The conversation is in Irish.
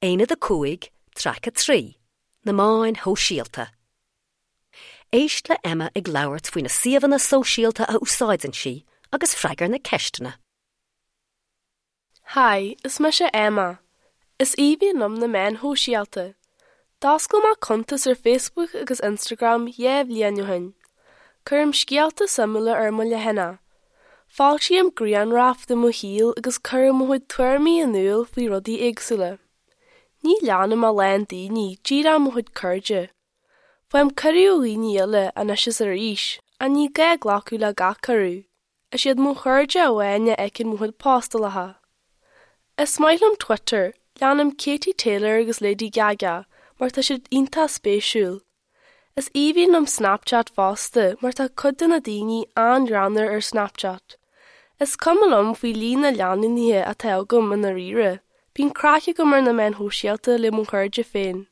Aonad 5, Traic 3, Na Meáin Shóisialta. Éist le Emma ag labhairt faoi na suíomhanna sóisialta a úsáideann sí agus freagair na ceisteanna. Hi, is mise Emma. Is aoibhinn liom na meáin shóisialta. D'oscail mé cuntas ar Facebook agus Instagram 2 bhliain ó shin. Cuirim scéalta suimiúla ar mo leathanach. Foilsím grianghraif de mo shaol agus cuirim mo chuid tuairimí in iúl faoi rudaí éagsúla. Ní leanaim a lán daoine, díreach mo chuid cairde. Faighim cuireadh ó dhaoine eile anois is arís, ach ní gá glacadh le gach cuireadh. Is iad mo chairde amháin a fheiceann mo chuid postálacha. Is maith liom Twitter, leanaim Katie Taylor agus Lady Gaga mar tá siad iontach spéisiúil. Is aoibhinn liom Snapchat fosta mar tá cuid de na daoine an-ghreannmhar ar Snapchat. Is cuma liom faoi líon na leanúnaithe atá agam i ndáiríre, bíonn craic agam ar na meáin shóisialta le mo chairde féin.